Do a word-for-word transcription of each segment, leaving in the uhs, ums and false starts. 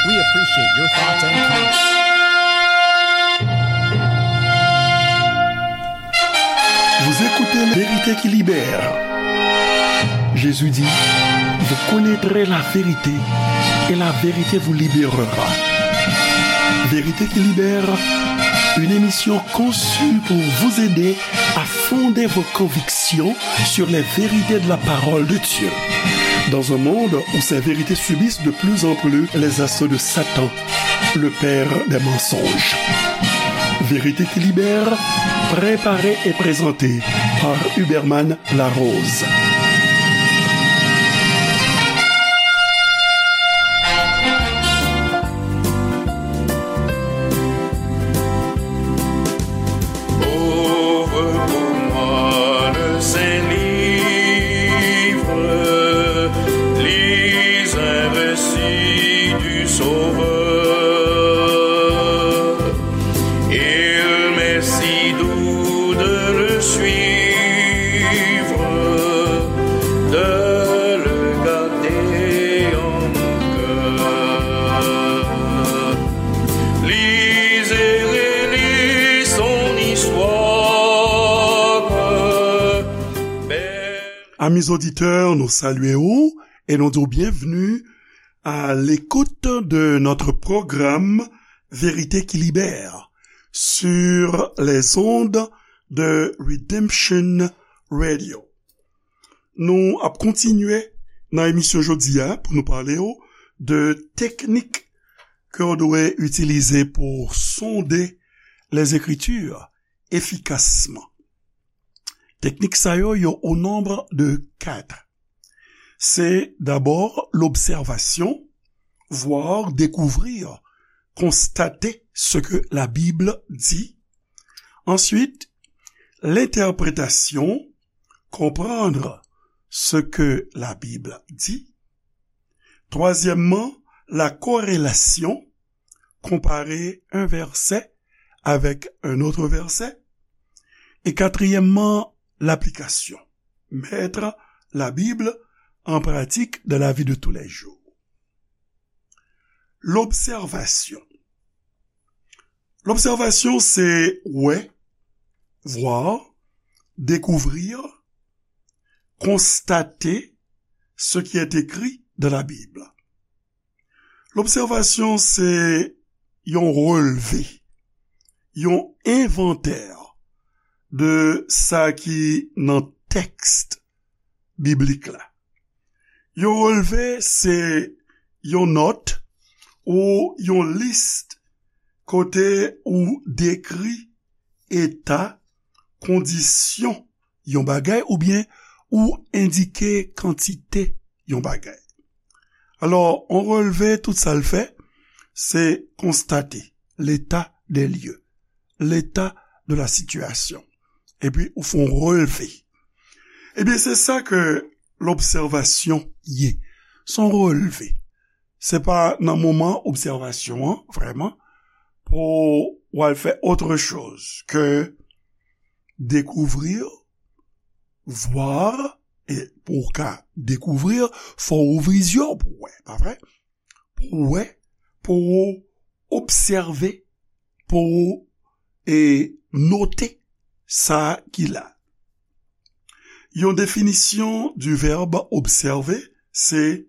We appreciate your thoughts and comments. Vous écoutez La Vérité qui libère. Jésus dit, vous connaîtrez la vérité et la vérité vous libérera. Vérité qui libère, une émission conçue pour vous aider à fonder vos convictions sur les vérités de la parole de Dieu. Dans un monde où ces vérités subissent de plus en plus les assauts de Satan, le père des mensonges. Vérité qui libère, préparée et présentée par Huberman Larose. Ouvre pour moi le saint livre, lis un récit du Sauveur. Il m'est si doux de le suivre, de le garder en mon cœur. Lis et relis son histoire. Amis auditeurs, nou salye w e nou di w byenvni à l'écoute de notre programme Vérité qui libère sur les ondes de Redemption Radio. Nou ap kontinye nan emisyon jodi a pou nou pale w de teknik ke w dwe itilize pou sonde les Écritures efficacement. Teknik sa yo, yo au nombre de quatre. C'est d'abord l'observation, voir, découvrir, constater ce que la Bible dit. Ensuite, l'interprétation, comprendre ce que la Bible dit. Troisièmement, la corrélation, comparer un verset avec un autre verset. Et quatrièmement, l'application, mettre la Bible en pratique dans la vie de tous les jours. L'observation. L'observation, c'est ouais, voir, découvrir, constater ce qui est écrit dans la Bible. Lobsèvasyon se yon relve, yon envantè de sa ki nan tèks biblik la. Yon relve se yon nòt ou yon lis kote ou dekri eta, kondisyon yon bagay oubyen ou endike kantite yon bagay. Alò, yon relve, tout sa l fè, se konstate l'état des lieux, l'état de la situation. Epi ou fè yon relve. Ebyen, se sa ke lobsèvasyon ye. Se yon relve. Se pa nan moman obsèvasyon an, vrèman, pou w al fè autre chose que découvrir, voir, e pou w ka découvrir, fò w ouvri zye w pou w wè, pa vre? Pou w wè, pou w obsève, pou w, e, note sa ki la. Yon definisyon du verbe observer, se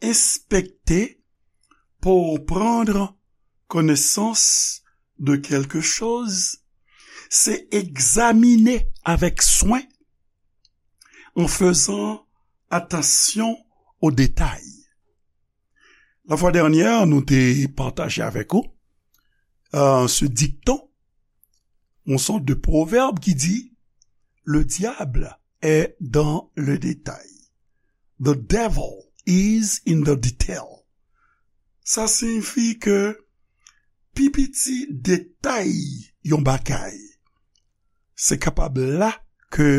enspekte pour prendre connaissance de quelque chose, se egzamine avèk swen, en faisant attention aux détails. La fois dernière, nou te pataje avèk ou, euh, ce dicton, yon sòt de pwovèb ki di, le diable est dans le détail. The devil is in the detail. Sa siyifi ke pi piti detay yon bagay, se kapab la ke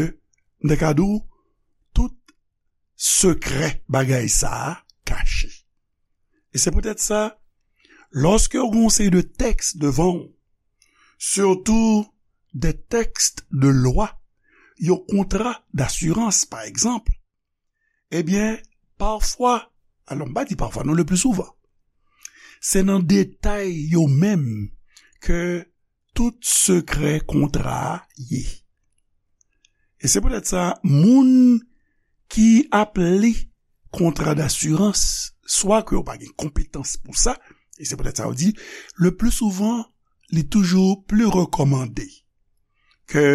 n te ka di w tout sekrè bagay sa a kache. E se poutèt sa, lòske w gen yon seri de tèks devan w, surtout des textes de loi, yon kontra d'assurance, pa egzanp, ebyen, pafwa, alò, m pa di pafwa, non, le plus souvent, Se nan detay yo menm ke tout sekrè kontra a ye. E se poutèt sa, moun ki ap li kontra dasirans, swa ke yo pa gen konpetans pou sa, e se poutèt sa yo di, le pli souvan, li toujou pli rekòmande ke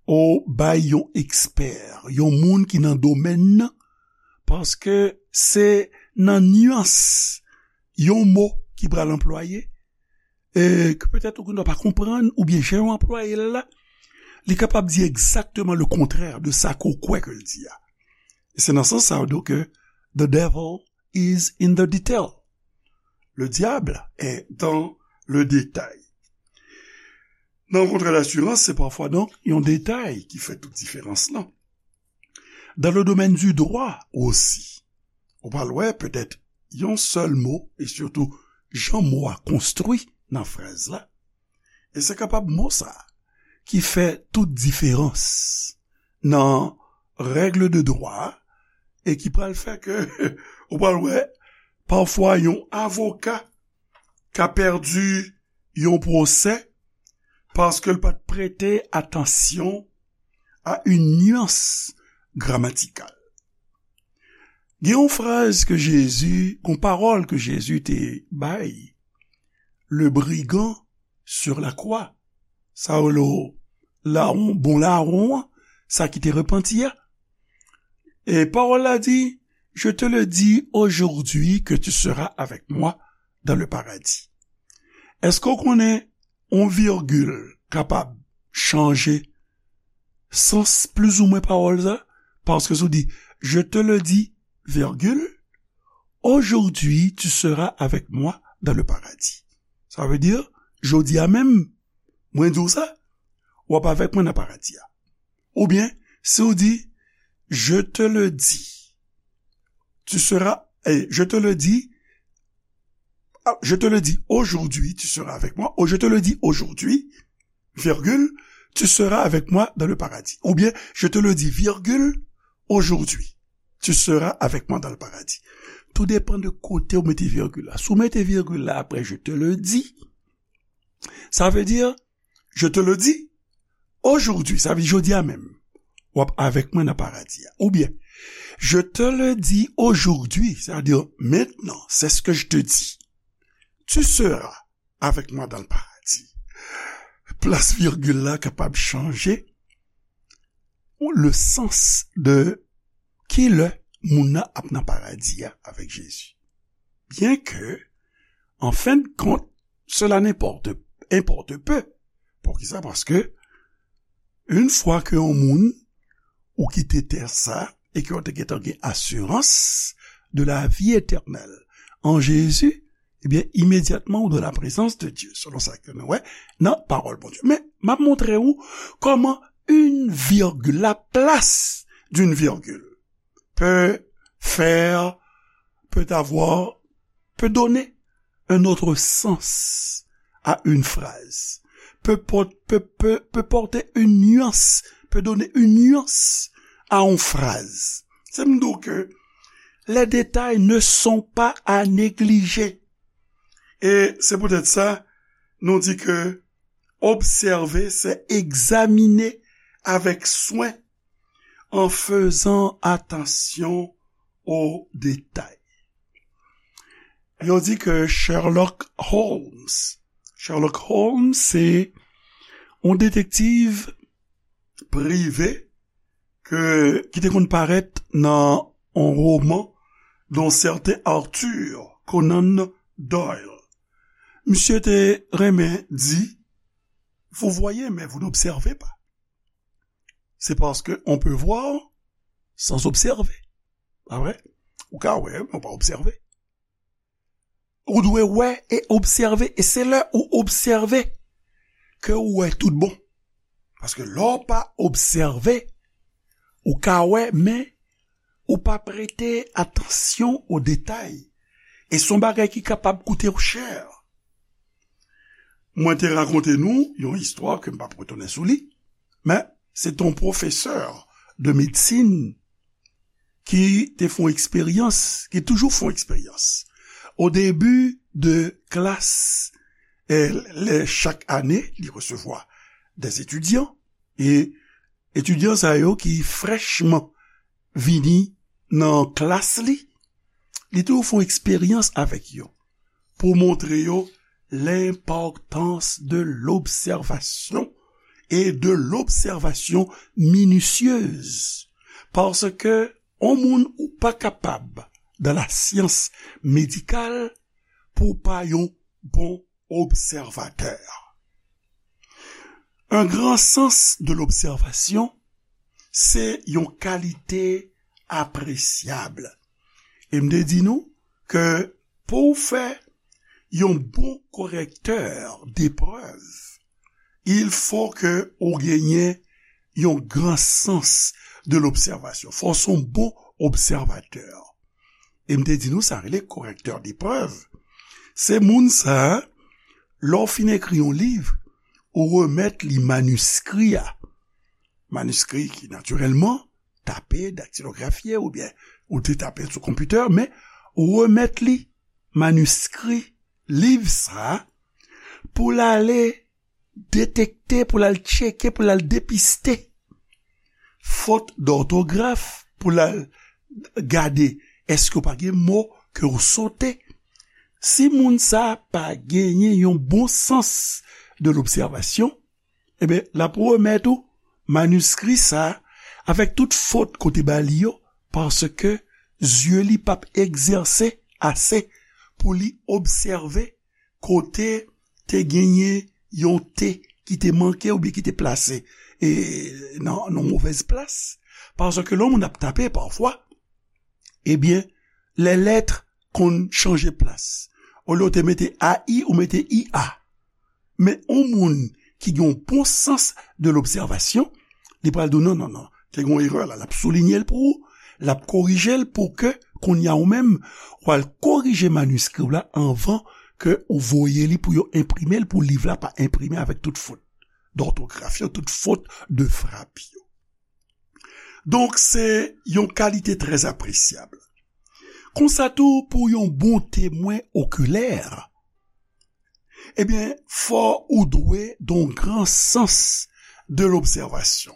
ou bay yon ekspè, yon moun ki nan domèn nan, paske se nan nyans yon mo ki pral anplwaye, e ke petèt ou gen dwa pa konprann, oubyen jan yo anplwaye l la, li kapab di egzakteman le kontrè de sa ke w kwè ke l di a. E se nan sans sa yo di ke the devil is in the detail. Le diable est dans le détail. Nan kontra dasirans, se pafwa donk yon detay ki fè tout diferans lan. Dans le domaine du droit aussi, ou pral wè petèt yon sèl mo, e sitou jan mo a konstwi nan fraz la, e se kapab mo sa a ki fè tout diferans nan règle de droit e ki pral fè ke ou pral wè pafwa yon avoka ka pèdi yon pwosè paske l pa t prete atansyon a yon nyans gramatikal. Gen yon fraz ke Jezi, yon pawòl ke Jezi te bay, le brigand sur la croix. Sa yo le lawon, bon lawon an, sa ki te repanti a. E pawòl la di, je te le dis aujourd'hui que tu seras avec moi dans le paradis. Èske w konnen yon virgil kapab chanje sans plizoumwen pawòl sa? Paske si w di, je te le dis, virgule, aujourd'hui tu seras avec moi dans le paradis. Sa vle di, jodi a menm, mwen di w sa, w ap avèk mwen nan paradi a. Oubyen, si w di, je te le dis, tu seras, eh, je te le dis, ah, je te le dis aujourd'hui, tu seras avec moi, ou je te le dis aujourd'hui, virgule, tu seras avec moi dans le paradis. Oubyen, je te le dis, virgule, aujourd'hui, tu seras avec moi dans le paradis. Tout depann de kote ou mete virgil la. Si w mete virgil la apre je te le dis, sa vle di, je te le dis, aujourd'hui, sa vle di jodi a menm, w ap avèk mwen nan paradi a. Oubyen, je te le dis aujourd'hui, c'est-à-dire maintenant, c'est ce que je te dis. Tu seras avec moi dans le paradis. Plas virgil la kapab chanje le sans de ki lè moun nan ap nan paradi a avèk Jezi. Byen ke, an fen de kont, cela n'importe, importe peu. Poukisa? Paske, yon fwa ke yon moun ou kite tè sa, e ke w te gentan gen asirans de la vie éternelle en Jésus, ebyen, imedyatman ou dans la présence de Dieu, selon sa ke nou wè nan pawòl Bondye. Men, m ap montre w kòman une virgule, la place d'une virgule, peut faire, peut avoir, peut donner un autre sens à une phrase, peut, por- peut, peut, peut porter une nuance, peut donner une nuance à une phrase. Se m di w ke les détails ne sont pas à négliger. E se poutèt sa, nou di ke observer, c'est examiner avec soin en faisant attention aux détails. Yo di ke Sherlock Holmes, Sherlock Holmes, se yon detektiv prive ke, ki te konn parèt nan yon woman d'un certain Arthur Conan Doyle. Misye te renmen di, vous voyez, mais vous n'observez pas. C'est parce que on peut voir sans observer. Pa vre? Ou ka wè, men ou pa obsève. Ou dwe wè e obsève, e se lè ou obsève ke ou wè tout bon. Paske lè w pa obsève, ou ka wè, men ou pa prete atansyon o detay. E se yon bagay ki kapab koute w chè. Mwen te rakonte nou yon istwa ke m p ap retounen sou li, men se t on pwofesè de medsin ki te fè yon eksperyans, ki toujou fè yon eksperyans. Au début de classe, eh, lè chak ane, li resevwa des étudiants, e etidyan sa yo ki frèchman vini nan klas li, li toujou fè yon eksperyans avèk yo pou montre yo l'importance de l'observation et de l'observation minutieuse. Paske yon moun ou pa kapab dans la science médicale pou w pa yon bon obsèvatè. Un grand sens de l'observation, se yon kalite apresyab. E m te di nou ke pou w fè yon bon korektè deprèv, il faut que ou genyen yon gran sans de l'observation. Fò w se yon bon obsèvatè. E m te di nou sa rele korektè deprèv. Se moun sa a, lè w fin ekri yon liv, ou remèt li maniskri a. Maniskri ki natirèlman tape, daktilografye oubyen ou te tape l sou konpitè, men ou remèt li maniskri liv sa a pou l ale detekte, pou l al tcheke, pou l al depiste fot dòtograf, pou l al gade èske w pa gen mo ke w sote. Si moun sa a pa genyen yon bon sans de l'observation, ebyen, l ap remèt ou maniskri sa a avèk tout fot ke w te ba li yo, paske zye li p ap egzèse ase pou li obsève kote te genyen yon T ki te manke oubyen ki te plase, e, nan, nan movèz plas. Paske lè yon moun ap tape pafwa, ebyen, lè lèt konn chanje plas. Olye w te mete A I, ou mete I A. Men yon moun ki gen yon bon sans de l'observation, li pral di w, "Non, non, non, te gen yon erè la." L ap soulinye l pou ou, l ap korije l pou ke kounye a ou menm, w al korije maniskri w la anvan ke ou voye li pou yo enprime l, pou liv la pa enprime avèk tout fot dòtograf yo, tout fot de frap yo. Donk, se yon kalite trè apresyab. Konsa tou, pou yon bon temwen okilè, ebyen, fò ou dwe gen yon gran sans de l'observation.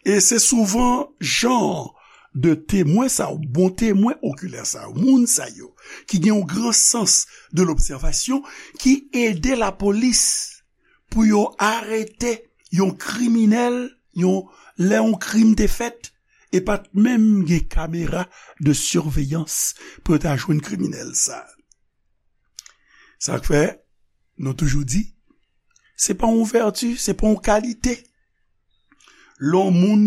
E se souvan jan de temwen sa yo, bon temwen okilè sa yo, moun sa yo, ki gen yon gran sans de l'observation, ki ede lapolis pou yo arete yon kriminèl, yon, lè yon krim te fèt, e pa t menm gen kamera de siveyans pou yo ta jwenn kriminèl sa. Sa k fè, nou toujou di, se pa yon vèti, se pa yon kalite. Lè yon moun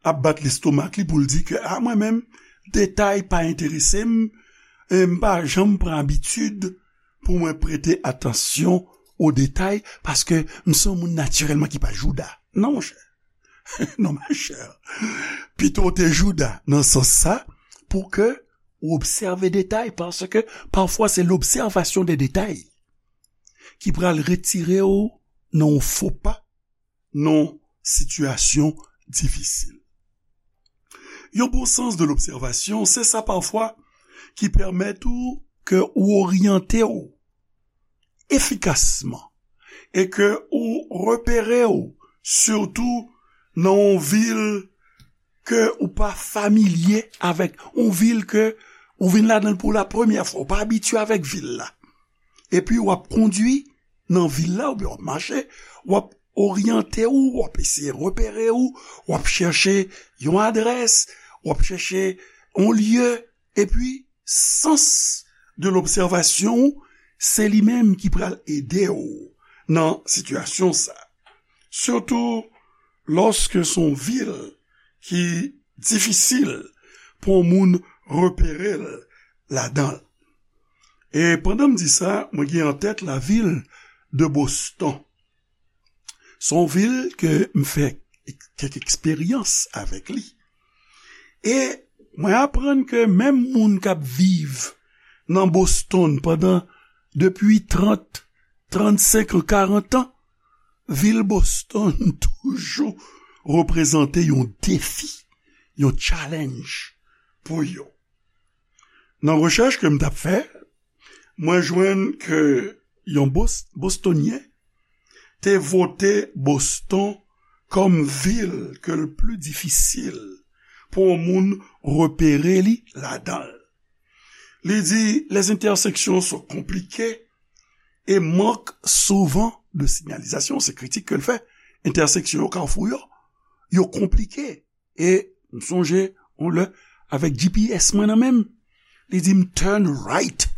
ap bat lestomak li pou l di ke, "A, mwen menm, detay pa enterese m, e m pa janm pran abitid pou mwen prete atansyon o detay, paske m se yon moun natirèlman ki pa jouda." Non, monchè. Non, machè. Pito w te jouda nan sans sa, pou ke ou obsève detay, paske pafwa se l'observation des détails ki pral retire w nan yon fo pa, nan yon sitiyasyon difisil. Yon bon sans de l'observation, se sa pafwa ki pèmèt ou ke ou oryante w efikasman e ke ou repere w, sitou nan yon vil ke ou pa familye avèk, yon vil ke ou vin ladan l pou la premyè fwa, ou pa abitye avèk vil la. Epi w ap kondwi nan vil la, oubyen w ap mache, w ap oryante w, w ap eseye repere w, w ap chèche yon adrès, w ap chèche yon lye, epi sans de l'observation, se li menm ki pral ede w nan sitiyasyon sa. Sitou lòske se yon vil ki difisil pou yon moun repere l ladan l. E pandan m di sa, mwen gen an tèt lavil de Boston. Se yon vil ke m fè kèk eksperyans avèk li. E mwen aprann ke menm moun k ap viv nan Boston pandan, depi trant, trannsenk an, karant an, vil Boston toujou reprezante yon defi, yon challenge pou yo. Nan rechèch ke m t ap fè, Mwen jwenn ke yon Bos-, Bostonyen te vote Boston kòm vil ke l pli difisil pou yon moun repere li ladan l. Li di, les intersections sont compliquées et manquent souvent de signalisation. Se kritik ke l fè. Entèseksyon yo, kafou yo, yo konplike. E m sonje yon lè, avèk G P S mwen nan men m, li di m turn right.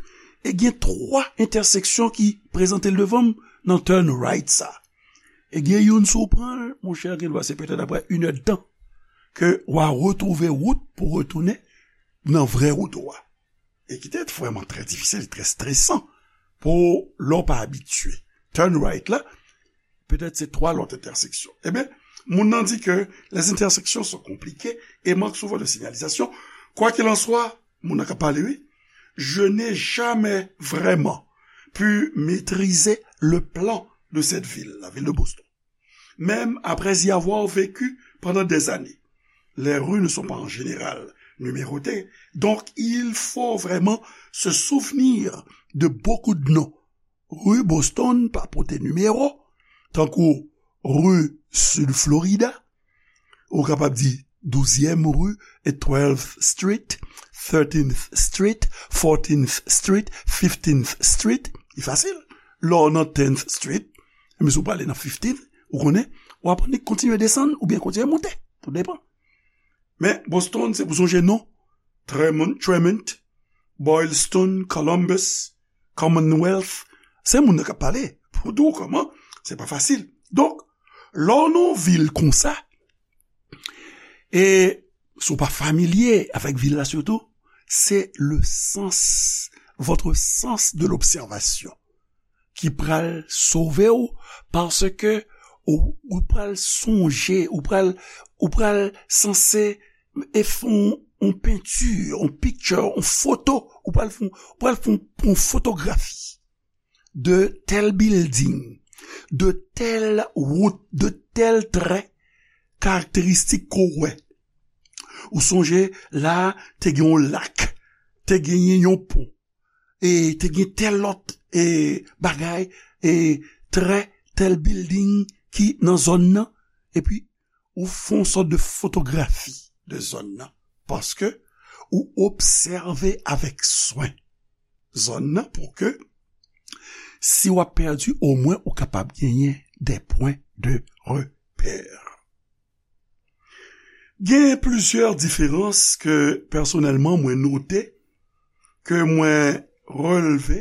E gen twa entèseksyon ki prezante l devan m nan turn right sa. E gen youn, si w pran l, monchè, gen dwa se petèt apre inèdtan ke w a retwouve wout pou retounen nan vrè wout ou a. E ki te vrèman trè difisil, trè stresan pou lè w pa abitye. Turn right la, petèt se twa lòt entèseksyon. Ebyen, moun nan di ke les intersections sont compliquées et manquent souvent de signalisation. Quoi qu'il en soit, moun nan k ap pale, wi, je n'ai jamais vraiment pu maîtriser le plan de cette ville, la ville de Boston. Même après y avoir vécu pendant des années. Les rues ne sont pas en général numérotées, donc il faut vraiment se souvenir de beaucoup de noms. Ri Boston pa pote nimewo, tankou ri Sid Florida, ou kapab di douzyèm ri, e twelfth Street, thirteenth Street, fourteenth Street, fifteenth Street. Li fasil. Lè w nan tenth Street, men si w prale nan fifteenth, ou konnen, w ap kontinye desann oubyen kontinye monte. Tou depan. Men Boston, se pou sonje non. Tremont, Tremont, Boylston, Columbus, Commonwealth. Se moun nan k ap pale. Pou di w kòman, se pa fasil. Donk, lè w nan yon vil konsa, e si w pa familye avèk vil la sitou, se le sens, votre sens de l'observation ki pral sove w, paske ou, ou pral sonje, ou pral, ou pral sanse e fè yon, yon penti, yon picture, yon foto, ou pral fè, ou pral fè yon, yon fotografi de tèl building, de tèl wout, de tèl trè karakteristik ke w wè. Ou sonje la, te gen yon lak, te genyen yon pon, e te gen tèl lòt, e, bagay, e trè tèl building ki nan zòn nan, epi ou fè yon sòt de fotografi de zòn nan, paske ou obsève avèk swen zòn nan pou ke si w ap pèdi, omwen ou kapab genyen des points de repère. Gen plizyè diferans ke pèsonèlman mwen note, ke mwen relve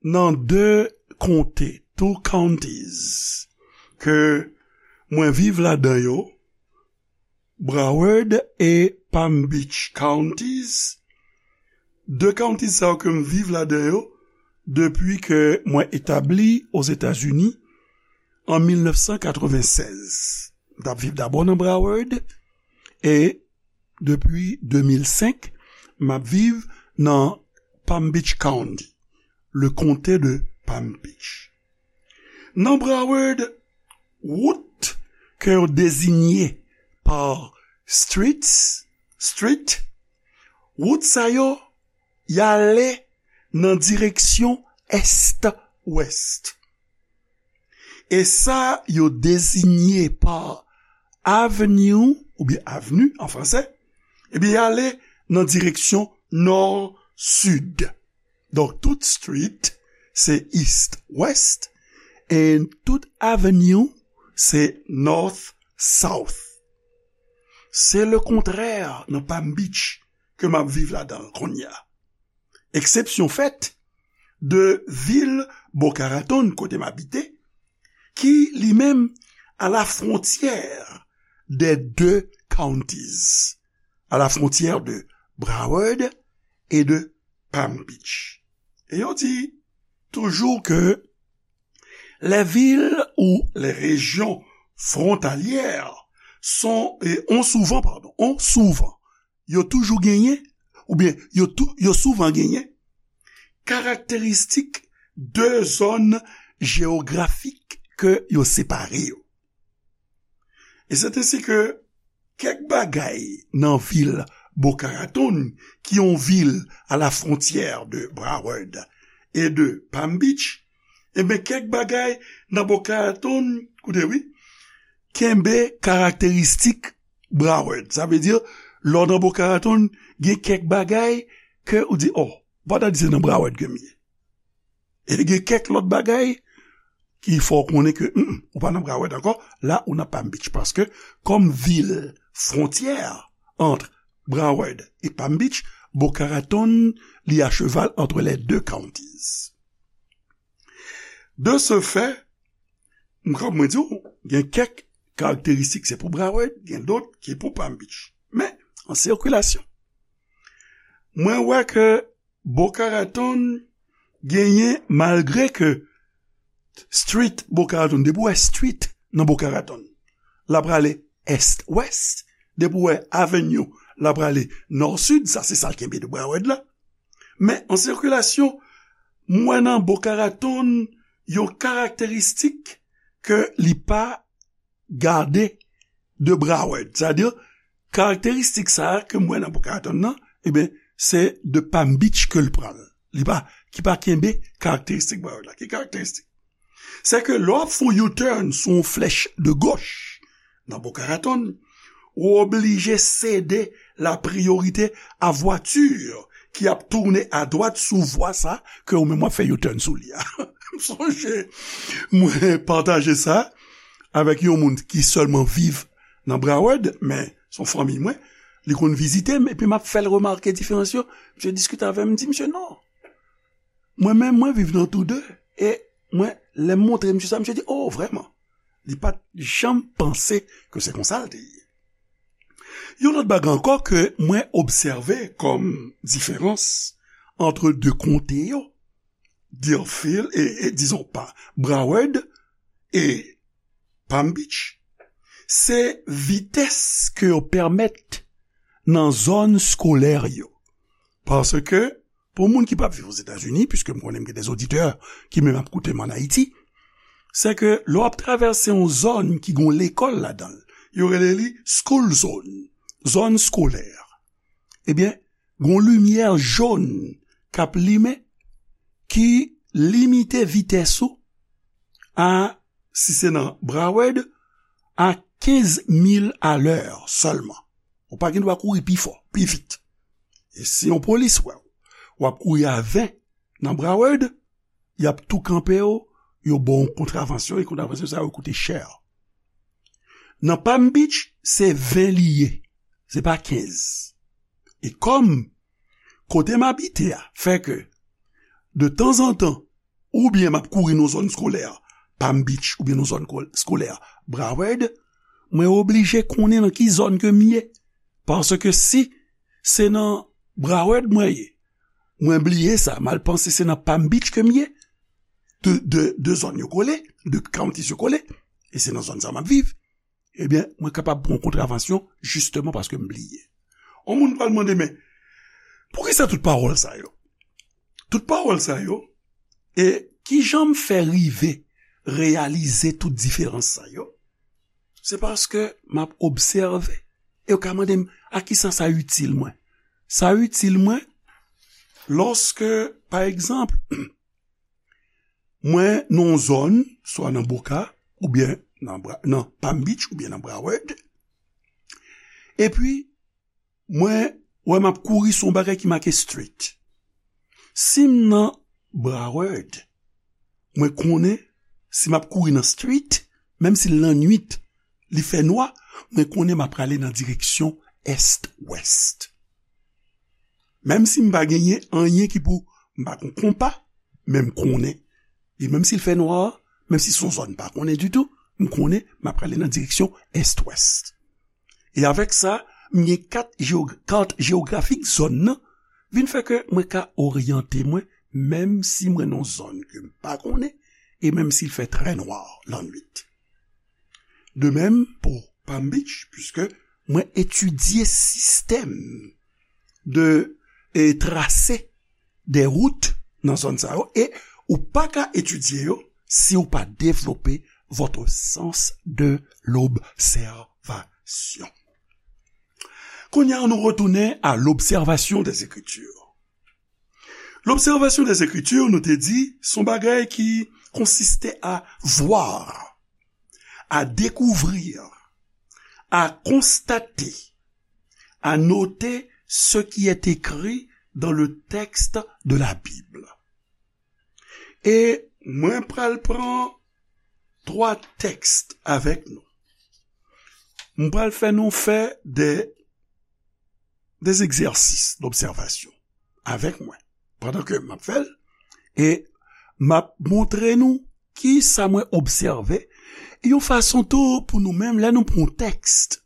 nan de konte, two counties, ke mwen viv ladan yo, Broward e Palm Beach counties. De counties sa yo ke m viv ladan yo depi ke mwen etabli Ozetazini an mil nèf san katrevennsèz. M t ap viv dabò nan Broward e depi de mil senk, m ap viv nan Palm Beach County, le comté de Palm Beach. Nan Broward, wout ke yo dezinye pa streets, street, wout sa yo, y ale nan direksyon est-ouest. E sa yo dezinye pa avenue, oubyen avenue an fransè, ebyen, y ale nan direksyon nò-sid. Donk, tout street, se east-west, e tout avenue, se north-south. Se le kontrè nan Palm Beach ke m ap viv ladan l kounye a. Eksepsyon fèt de vil Boca Raton, kote m abite, ki li menm à la frontière des deux counties, à la frontière de Broward et de Palm Beach. E yo di toujou ke les villes ou les régions frontalières sont, et ont souvent, pardon, ont souvent, yo toujou genyen, oubyen yo tou, yo souvan genyen, karakteristik de zòn jewografik ke yo separe yo. E se ensi ke kèk bagay nan vil Boca Raton, ki yon vil à la frontière de Broward e de Palm Beach, enben, kèk bagay nan Boca Raton, koute wi, kenbe karakteristik Broward. Sa vle di, lè w nan Boca Raton, gen kèk bagay ke ou di, oh, ou pa ta di se nan Broward ke m ye. E gen kèk lòt bagay ki fè w konnen ke, mm, ou pa nan Broward ankò, la ou nan Palm Beach. Paske, kòm vil fwontyè ant Broward e Palm Beach, Boca Raton, li a cheval entre les deux counties. De ce fait, m, kòm mwen di w, gen kèk karakteristik se pou Broward, gen dòt ki pou Palm Beach. Men, an sikilasyon, mwen wè ke Boca Raton genyen, malgre ke street Boca Raton, depi w wè street nan Boca Raton, l ap prale est-west, depi w wè avenue, l ap prale nò-sid, sa se sa l kenbe de Broward la. Men an sikilasyon, m wè nan Boca Raton yon karakteristik ke li pa gade de Broward. Sa vle di, karakteristik sa a ke m wè nan Boca Raton nan, ebyen, se de Palm Beach ke l pran l. Li pa, ki pa kenbe karakteristik Broward la. Ki karakteristik? Se ke lè w ap fè yon U-turn sou yon flèch de gòch nan Boca Raton, ou oblije sede la priyorite a vwati ki ap tounen adwat sou vwa sa ke ou menm w ap fè U-turn sou li a. M sonje, mwen pataje sa avèk yon moun ki sèlman viv nan Broward, men se yon fanmi mwen, li konn vizite m, epi m ap fè l remake diferans yo. Misye diskite avè m, m di, "Misye, non. Mwen menm, mwen viv nan tou de." E mwen, lè m montre misye sa, misye di, "Oh, vrèman?" Li pa t janm panse ke se konsa l te ye. Yon lòt bagay ankò ke mwen obsève kòm diferans ant de konte yo, Deerfield, e, e, dizon pa, Broward e Palm Beach, se vitès ke yo pèmèt nan zòn skolè yo. Paske, pou moun ki p ap viv Ozetazini, piske m konnen m gen de oditè ki menm ap koute m ann Ayiti, se ke lè w ap travèse yon zòn ki gen yon lekòl ladan l, yo rele li school zone, zòn skolè. Ebyen, gen yon limyè jòn k ap limen ki limite vitès ou a, si se nan Broward, a kenz mil alè sèlman. Ou pa gen dwa kouri pi fò, pi vit. E si yon polis wè w, w ap kouri a ven nan Broward, y ap tou kanpe w, yo ba w yon kontravansyon, e kontravansyon sa yo koute chè. Nan Palm Beach, se ven li ye, se pa kenz. E kòm kote m abite a fè ke, de tanzantan, oubyen m ap kouri nan zòn skolè, Palm Beach, oubyen nan zòn kol-, skolè, Broward, mwen oblije konnen nan ki zòn ke m ye. Paske si se nan Broward mwen ye, mwen bliye sa, m al panse se nan Palm Beach ke m ye, de, de, de zòn yo kole, de counties yo kole, e se nan zòn sa m ap viv, ebyen, mwen kapab pran kontravansyon, jisteman paske m bliye. Yon moun pral mande, "Men, poukisa tout pawòl sa yo?" Tout pawòl sa yo, e kijan m fè rive reyalize tout diferans sa yo? Se paske m ap obsève. E yo ka mande m, "A kisa sa itil mwen?" Sa itil mwen, lòske, pa egzanp, mwen nan yon zòn, swa nan Boca, oubyen nan Bra-, nan Palm Beach, oubyen nan Broward, epi mwen wè m ap kouri sou yon bagay ki make street. Si m nan Broward, mwen konnen si m ap kouri nan street, menm si l lannwit, li fè nwa, mwen konnen m ap prale nan direksyon est-west. Menm si m pa genyen anyen ki pou, m pa gon konpa, men m konnen. E menm si l fè nwa, menm si se yon zòn m pa konnen ditou, m konnen m ap prale nan direksyon est-west. E avèk sa, m gen kat jeog-, kat jewografik zòn nan, vin fè ke mwen ka oryante mwen, menm si mwen nan yon zòn ke m pa konnen, e menm si l fè trè nwa lannwit. De menm pou Palm Beach, piske mwen etidye sistèm de, e trase de wout nan zòn sa yo, e ou pa ka etidye yo si ou pa devlope votre sens de l'observation. Kounye a, nou retounen à l'observation des Écritures. L'observation des Écritures, nou te di, se yon bagay ki konsiste à voir, à découvrir, à constater, à noter ce qui est écrit dans le texte de la Bible. E mwen pral pran twa tèks avèk nou. Mwen pral fè nou fè de, des exercices d'observation avèk mwen pandan ke m ap fè l. E m ap montre nou ki sa mwen obsève. Yon fason tou pou nou menm, lè nou pran yon tèks,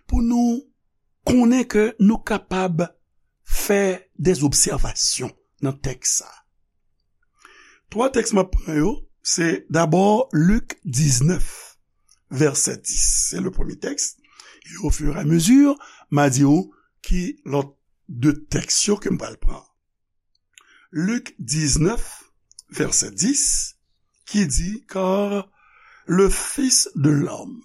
pou nou konnen ke nou kapab fè des observations nan tèks sa. Twa tèks m ap pran yo, se dabò Lik diznèf, vèsè dis. Se le premye tèks. E au fur et à mesure, m a di w ki lòt de tèks yo ke m pral pran. Lik diznèf, vèsè dis, ki di, car le Fils de l'homme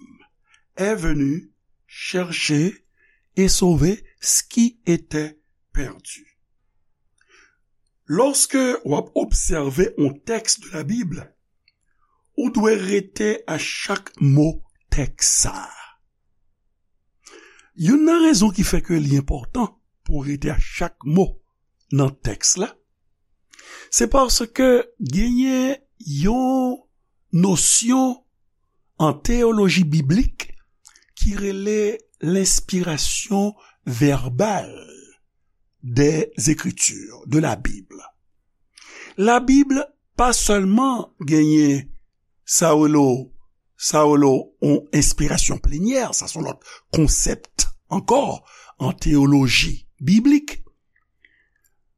est venu chercher et sauver ce qui était perdu. Lòske w ap obsève yon tèks de la Bib, ou dwe rete a chak mo tèks sa a. Youn nan rezon ki fè ke li enpòtan pou w rete a chak mo nan tèks la, se paske genyen yon nosyon an teyoloji biblik ki rele l'inspiration verbale des Écritures, de la Bible. Labib pa sèlman genyen sa yo rele, sa yo rele yon enspirasyon plenyè, sa se yon lòt konsèp ankò an teyoloji biblik.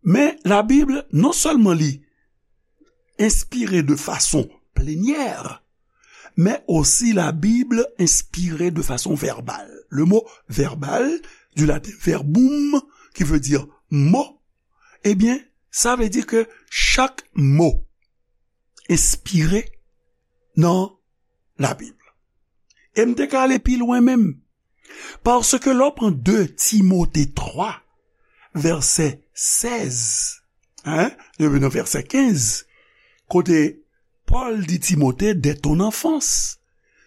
Men Labib, non sèlman li enspire de fason plenyè, men osi Labib enspire de fason vèbal. Le mot verbal, du latin verbum, qui veut dire mot, ebyen, sa vle di ke chak mo enspire nan Labib. E m te ka ale pi lwen menm. Paske lè w pran de Timote twa, vèsè sèz, hein, rive nan vèsè kenz, kote Pòl di Timote, dès ton enfance,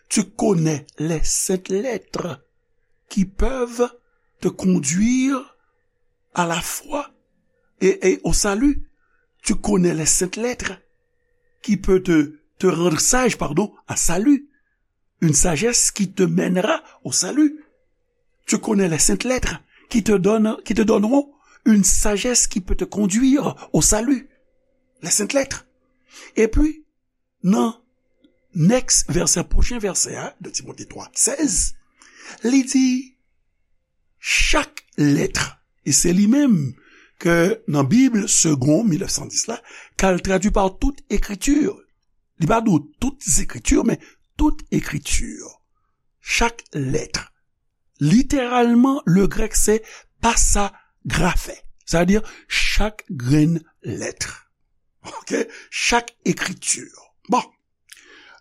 tu connais les saintes lettres qui peuvent te conduire à la foi et, et au salut. Tu connais les saintes lettres qui peuvent te, te rendre sage, pardon, à salut. Une sagesse qui te mènera au salut. Tu connais les saintes lettres qui te donnent, qui te donneront une sagesse qui peut te conduire au salut. Les saintes lettres. Et puis, nan next vèsè, pwochen vèsè a, de Timote twa sèz, li di, chak lèt, e se li menm ke nan Bib Segond mil nèf san dis la, car traduit par toute écriture. Li pa di w toutes écritures, men toute écriture. Chak lèt. Literalman, le grèk se pasa grafè. Sa vle di chak grenn lèt. Ok? Chak ekriti. Bon.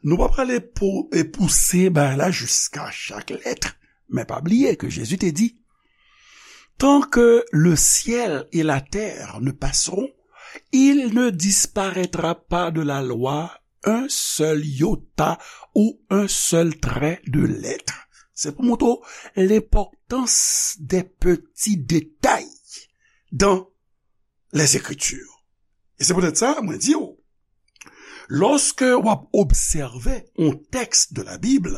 Nou pa prale pou, e pouse bagay la jiska chak lèt. Men pa bliye ke Jezi te di, tant que le ciel et la terre ne passeront, il ne disparaîtra pas de la loi un seul iota ou un seul trait de lettre. Se pou montre w lenpòtans des petits détails dans les Écritures. E se poutèt sa, mwen di w, lòske w ap obsève yon tèks de la Bib,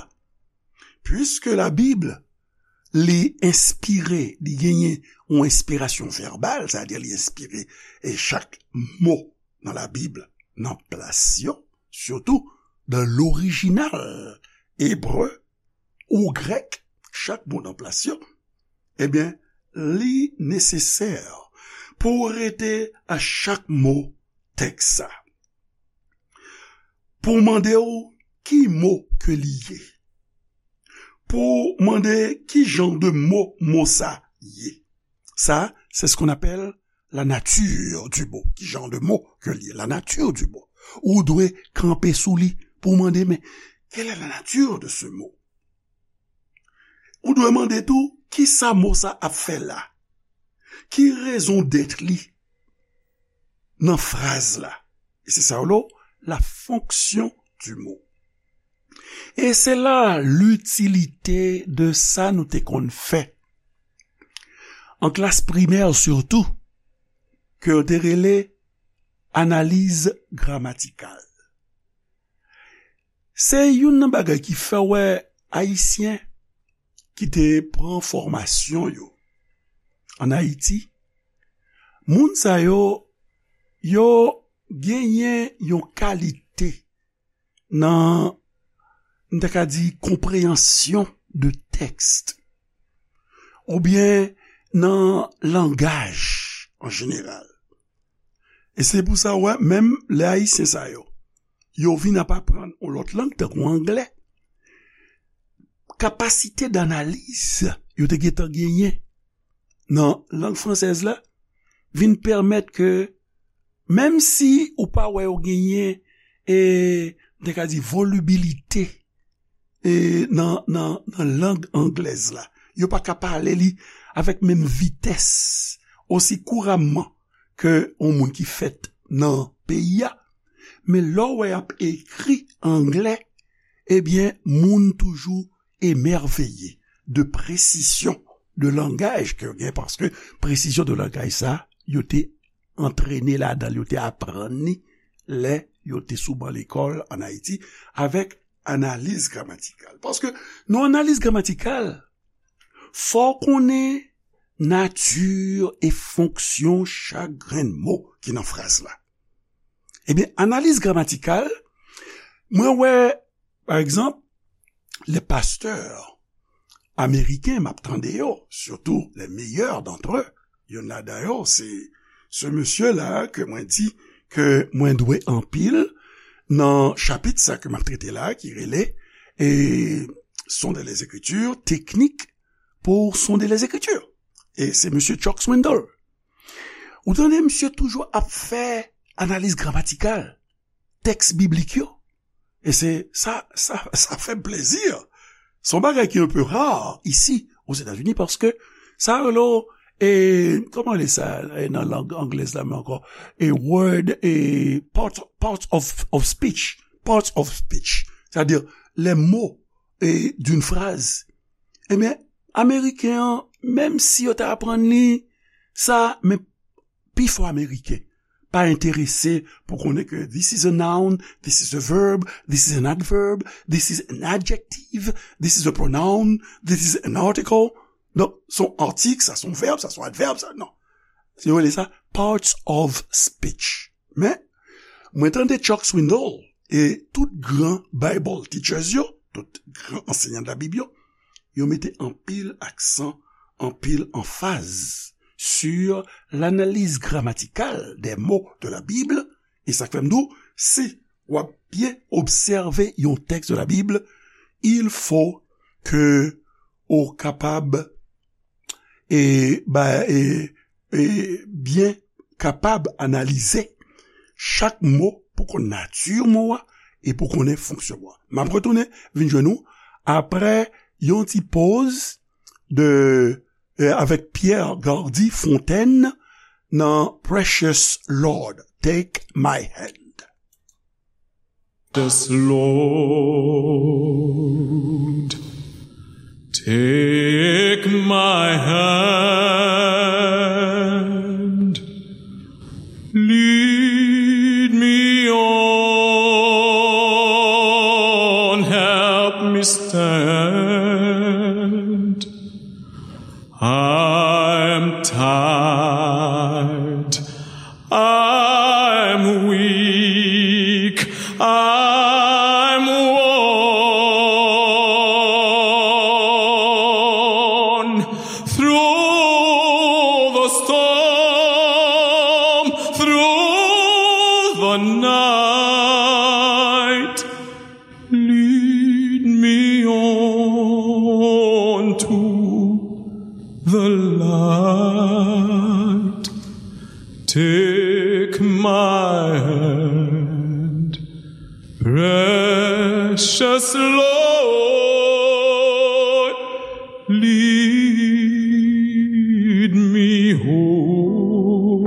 puiske la Bib, li enspire, li genyen yon enspirasyon vèbal, sa vle di li enspire, e chak mo nan la Bib nan plas yo, sitou dans l'original ebre ou grèk, chak mo nan plas yo, ebyen, li nesesè pou w rete a chak mo tèks sa. Pou w mande w ki mo ke li ye. Pou w mande ki jan de mo mo sa ye. Sa, c'est ce qu'on appelle la nature du mot. Ki jan de mo ke li ye? La nature du mot. Ou dwe kanpe sou li pou w mande, men, quelle est la nature de ce mot? Ou dwe mande tou, ki sa mo sa ap fè la? Ki raison d'être li? nan fraz la. E se sa yo rele la fonction du mot. E se la l'utilité de sa nou te konn fè an klas primè sitou, ke yo te rele analiz gramatikal. Se youn nan bagay ki fè w wè Ayisyen ki te pran fòmasyon yo ann Ayiti, moun sa yo, yo genyen yon kalite nan, m ta ka di, konpreyansyon de tèks oubyen nan langaj an jeneral. E se pou sa w wè, menm lè Ayisyen sa yo, yo vin ap aprann yon lòt lang, tankou anglè, kapasite danaliz yo te gentan genyen nan lang fransèz la vin pèmèt ke, menm si ou pa wè yo genyen, e, m te ka di, volibilite, e, nan, nan, nan lang anglèz la, yo pa ka pale li avèk menm vitès, osi kouramman ke yon moun ki fèt nan peyi a. Men lè w wè y ap ekri anglè, ebyen, moun toujou emèveye de presizyon de langaj ke yo gen, paske presizyon de langaj sa, yo te antrene ladan l, yo te aprann li lè yo te sou ban lekòl ann Ayiti avèk analiz gramatikal. Paske nan analiz gramatikal, fò w konnen nati e fonksyon chak grenn mo ki nan fraz la. Ebyen, analiz gramatikal, mwen wè, pa egzanp, les pasteurs américains, m ap tande yo, surtout les meilleurs d'entre eux, youn ladan yo, se, se mesye la ke mwen di ke mwen dwe anpil nan chapit sa ke m ap trete la, ki rele, e, Sonder les Écritures, teknik pou sonder les Écritures. E se mesye Chuck Swindoll. Ou tande misye toujou ap fè analiz gramatikal tèks biblik yo. E se sa, sa, sa fè m plezi. Se yon bagay ki un peu rare isi Ozetazini, paske sa rele, e, kòman rele sa, e, nan lang anglèz la men ankò? E word, e, part, part of, of speech. Part of speech. Sètadi, les mots, e, d'une phrase. Ebyen, Ameriken an, menm si yo ta aprann li sa, men pifò Ameriken pa enterese pou konnen ke this is a noun, this is a verb, this is an adverb, this is an adjective, this is a pronoun, this is an article. Donk, se yon atik, sa se yon vèb, sa se yon advèb, sa, non. Yo rele sa parts of speech. Men, mwen tande Chuck Swindoll e tout gran Bible teachers yo, tout gran ansenyan de la Bib yo, yo mete anpil aksan, anpil anfaz sur l'analyse grammaticale des mots de la Bible. E sa k fè m di w, si w ap byen obsève yon tèks de la Bible, il faut que ou kapab e, ba, e, e byen kapab analize chak mo pou konn nati mo a e pou konnen fonksyon mo a. M ap retounen vin jwenn ou apre yon ti poz de, e, avèk Pierre Gardy Fontaine nan Precious Lord, Take My Hand. Yes, Lord, take my hand, lead me on, help me stand. I'm tired, I'm weak, I'm worn. Through the storm, through the night, lead me on to the light. Take my hand, precious Lord, lead me home.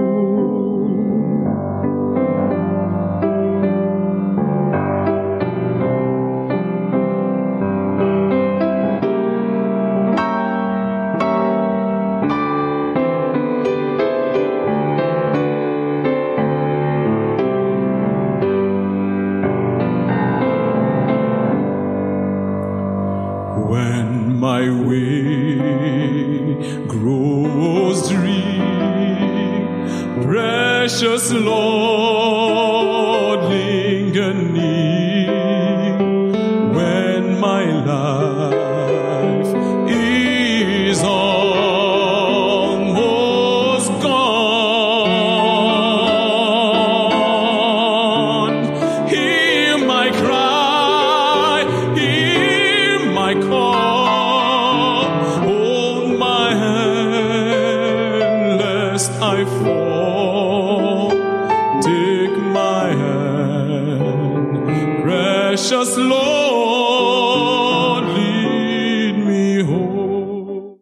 Just Lord, lead me home.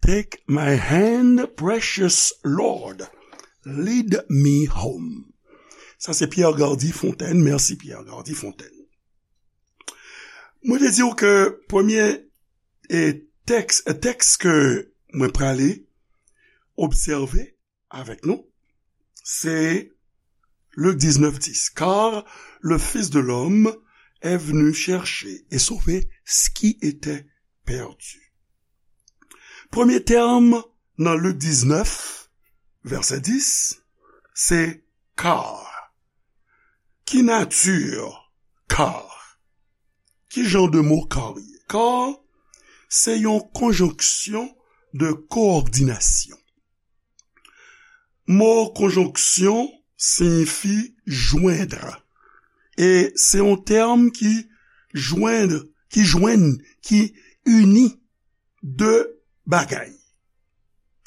Take my hand, precious Lord, lead me home. Sa se Pierre Gardy Fontaine. Mèsi Pierre Gardy Fontaine. Mwen te di w ke premye e tèks, tèks ke mwen prale obsève avèk nou, se Lik diznèf dis, car le Fils de l'homme est venu chercher et sauver ce qui était perdu. Premye tèm nan Lik diznèf, vèsè dis, se car. Ki nati car? Ki jan de mo car ye? Car se yon konjonksyon de kowòdinasyon. Mo konjonksyon siyifi jwenn. E se yon tèm ki jwenn, ki jwenn, ki ini de bagay,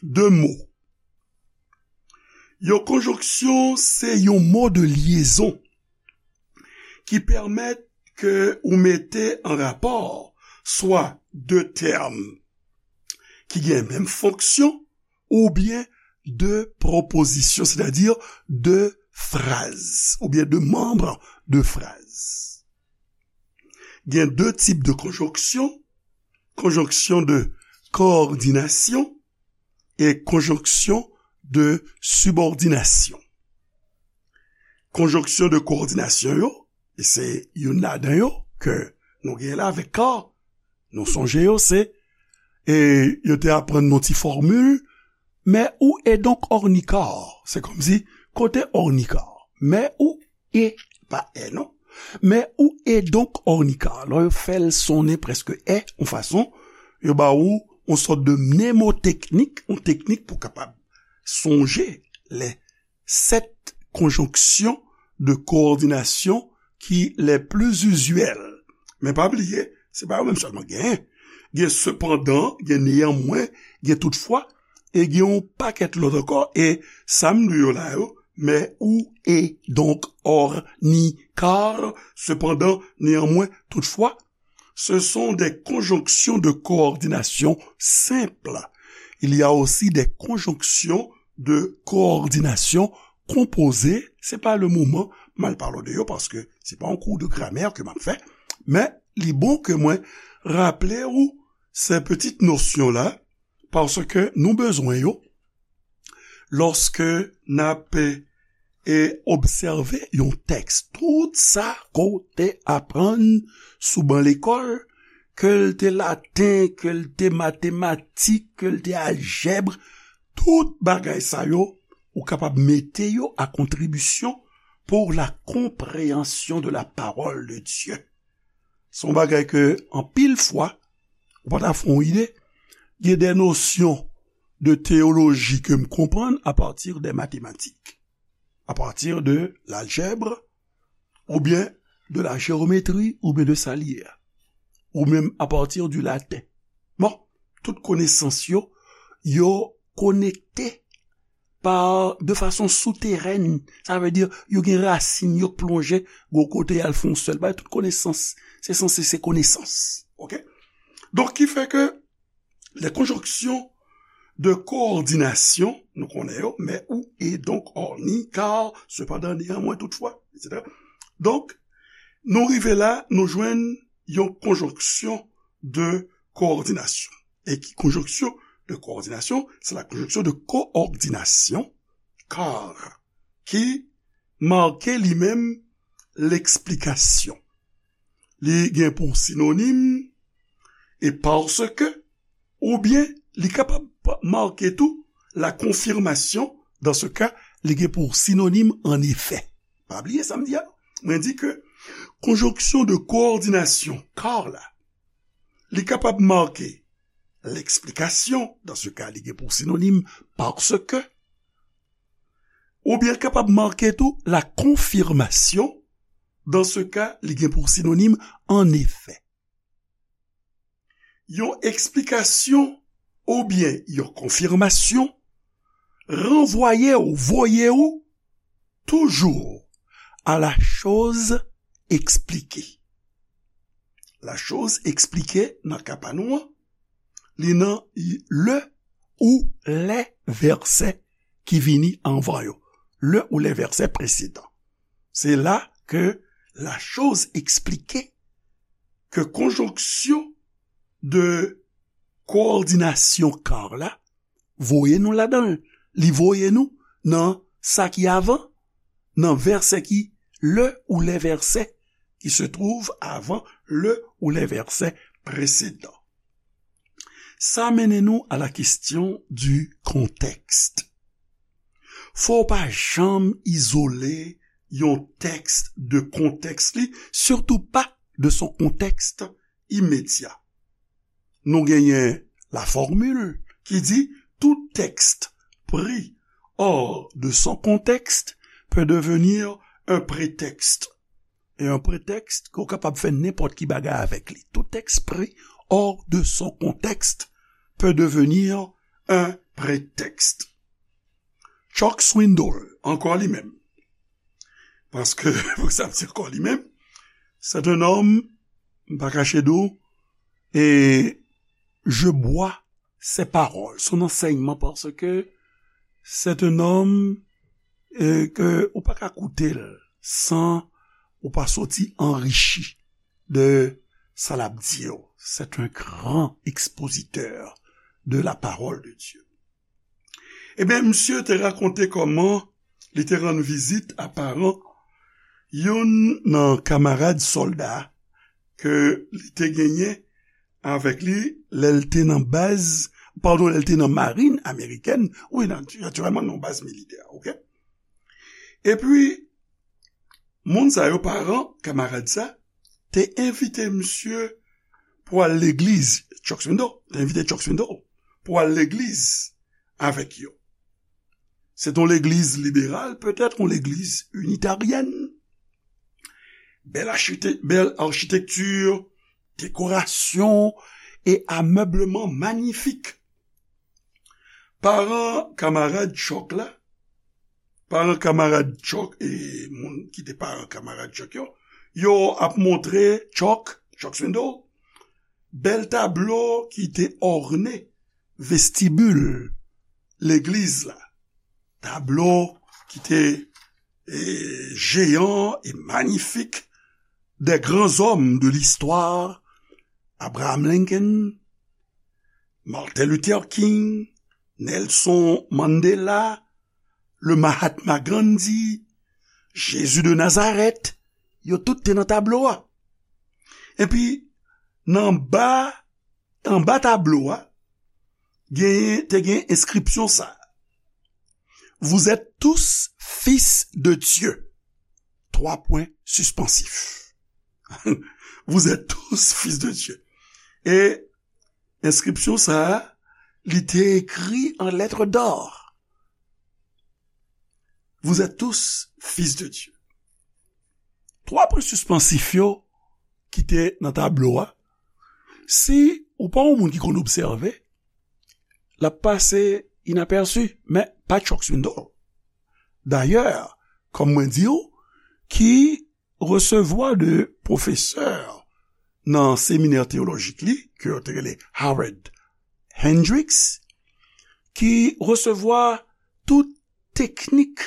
de mo. Yon konjonksyon se yon mo de lyezon ki pèmèt ke ou mete an rapò swa de tèm ki gen menm fonksyon oubyen de pwopozisyon, sètadi de fraz, oubyen de manm de fraz. Gen de tip de konjonksyon, konjonksyon de kowòdinasyon e konjonksyon de sibòdinasyon. Konjonksyon de kowòdinasyon yo, e se youn ladan yo ke nou gen la avèk car, nou sonje yo, se, e yo te aprann nou ti fòmil, mais où est donc Ornicar? Se kòmsi, kote Ornicar? Mais où est, pa è non, mais où est donc Ornicar? Lè yo fè l sonnen prèske è, yon fason, yo ba ou yon sòt de mnemoteknik, yon teknik pou kapab sonje lè sèt konjonksyon de kowòdinasyon ki lè pli izyèl. Men pa bliye, se pa yo menm sèlman genyen. Gen sepandan, gen neyanmwen, gen toutfwa, e gen yon pakèt lòt ankò, e sa m li yo la yo, mais où est donc Ornicar, cependant, néanmoins, toutefois, ce sont des conjonctions de coordination simples. Il y a aussi des conjonctions de coordination composées. Se pa le moman m al pale w de yo, paske se pa yon kou de gramè ke m ap fè, men li bon ke mwen raple ou se pitit nosyon la, paske nou bezwen yo lòske n ap e obsève yon tèks. Tout sa ke w te aprann sou ban lekòl, ke l te laten, ke l te matematik, ke l te aljèb, tout bagay sa yo, ou kapab mete yo a kontribisyon pour la compréhension de la parole de Dieu. Se yon bagay ke anpil fwa, ou pa ta fè yon ide, gen de nosyon de teyoloji ke m konprann a pati de matematik, a pati de laljèb, oubyen de la jewometri, oubyen de sa li ye a, ou menm a pati di laten. Bon, tout konesans yo, yo konekte pa, de fason souterèn. Sa vle di, yo gen rasin, yo plonje, gon kote y al fè yon sèl bagay. Tout konesans, se sanse se konesans. Oke? Donk, ki fè ke les conjonctions de coordination, nou konnen yo, mais où est donc Ornicar, cependant, néanmoins, toutefois, et cetera. Donk, nou rive la, nou jwenn yon konjonksyon de coordination. E ki konjonksyon de coordination? C'est la conjonction de coordination, car, ki make li menm l'explication. Li gen pou sinonim e parce que, oubyen li kapab make tou la confirmation, dans ce cas, li gen pou sinonim en effet. Pa bliye sa m di a. Mwen di ke konjonksyon de kowòdinasyon car la, li kapab make l'explication, dans ce cas, li gen pou sinonim parce que, oubyen kapab make tou la confirmation, dans ce cas, li gen pou sinonim en effet. Yon eksplikasyon oubyen yon konfimasyon ranvwaye w, voye w toujou à la chose expliquée. La chose expliquée nan ka pa nou an, li nan le ou les versets ki vini anvan yo. Le ou les versets précédents. Se la ke la chose expliquée, ke konjonksyon de kowòdinasyon car la voye nou ladan l. Li voye nou nan sa ki avan, nan vèsè ki, le ou les versets qui se trouvent avant le ou les versets précédents. Sa mennen nou à la question du contexte. Fò w pa janm izole yon tèks de kontèks li, sitou pa de son contexte immédiat. Nou genyen la formule ki di tout texte pris hors de son contexte peut devenir un prétexte. E yon pretèks ke w kapab fè nenpòt ki bagay avèk li. Tout texte pris hors de son contexte peut devenir un prétexte. Chuck Swindoll, ankò li menm. Paske, pou sa m di ankò li menm, c'est un homme, m pa kache di w, et je bois ses paroles, son enseignement, parce que c'est un homme, euh, ke ou pa ka koute l san ou pa soti anrichi de sa l ap di yo. C'est un grand expositeur de la parole de Dieu. Ebyen, misye te rakonte kòman li te rann vizit a paran youn nan kamarad sòlda ke li te genyen avèk li lè l te nan baz, padon, lè l te nan marin amerikèn, wi, natirèlman, nan baz militè, oke? Epi, moun sa yo, paran kamarad sa, te envite misye pou al legliz, Chuck Swindoll, te envite Chuck Swindoll pou al legliz avèk yo. Se t yon legliz liberal, petèt yon legliz initaryèn. Bèl achite-, bèl achitekti, dekorasyon e amèbleman manyifik. Paran kamarad Chuck la, paran kamarad Chuck e moun ki te paran kamarad Chuck yo, yo ap montre Chuck, Chuck Swindoll, bèl tablo ki te òne vestibul legliz la. Tablo ki te, e, jeyan e manyifik des grands hommes de l'histoire, Abraham Lincoln, Martin Luther King, Nelson Mandela, le Mahatma Gandhi, Jésus de Nazareth, yo tout te nan tablo a. Epi, nan ba, anba tablo a, genyen, te gen enskripsyon sa. Vous êtes tous fils de Dieu. Trois points suspensifs. Vous êtes tous fils de Dieu. E enskripsyon sa a, li te ekri an lettres d'or. Vous êtes tous fils de Dieu. Twa pwen sispansif yo ki te nan tablo a, si ou pa yon moun ki konn obsève, l ap pase inapèsi, men pa Chuck Swindoll. Dayè, kòm mwen di w, ki resevwa de pwofesè nan seminè teyolojik li, ke yo te rele Howard Hendricks, ki resevwa tout teknik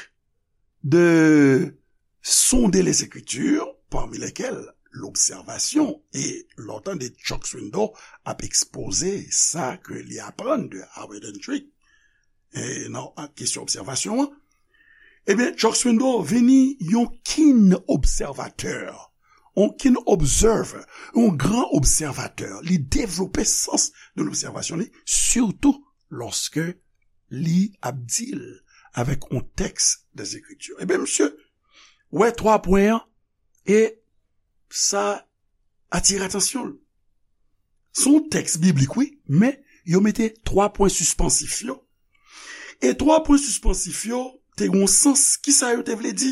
de sonder les Écritures, parmi lesquelles l'observation. E lè w tande Chuck Swindoll ap ekspoze sa ke li aprann de Howard Hendricks, e nan kesyon obsèvasyon an, ebyen, Chuck Swindoll vini yon keen obsèvatè, yon keen observer, yon gran obsèvatè. Li devlope sans de lobsèvasyon li, sitou lòske li ap deal avèk yon tèks des Écritures. Ebyen, misye wè twa pwen an, e sa atire atansyon l. Se yon tèks biblik, wi, men yo mete twa pwen sispansif yo. E twa pwen sispansif yo te gen yon sans. Kisa yo te vle di?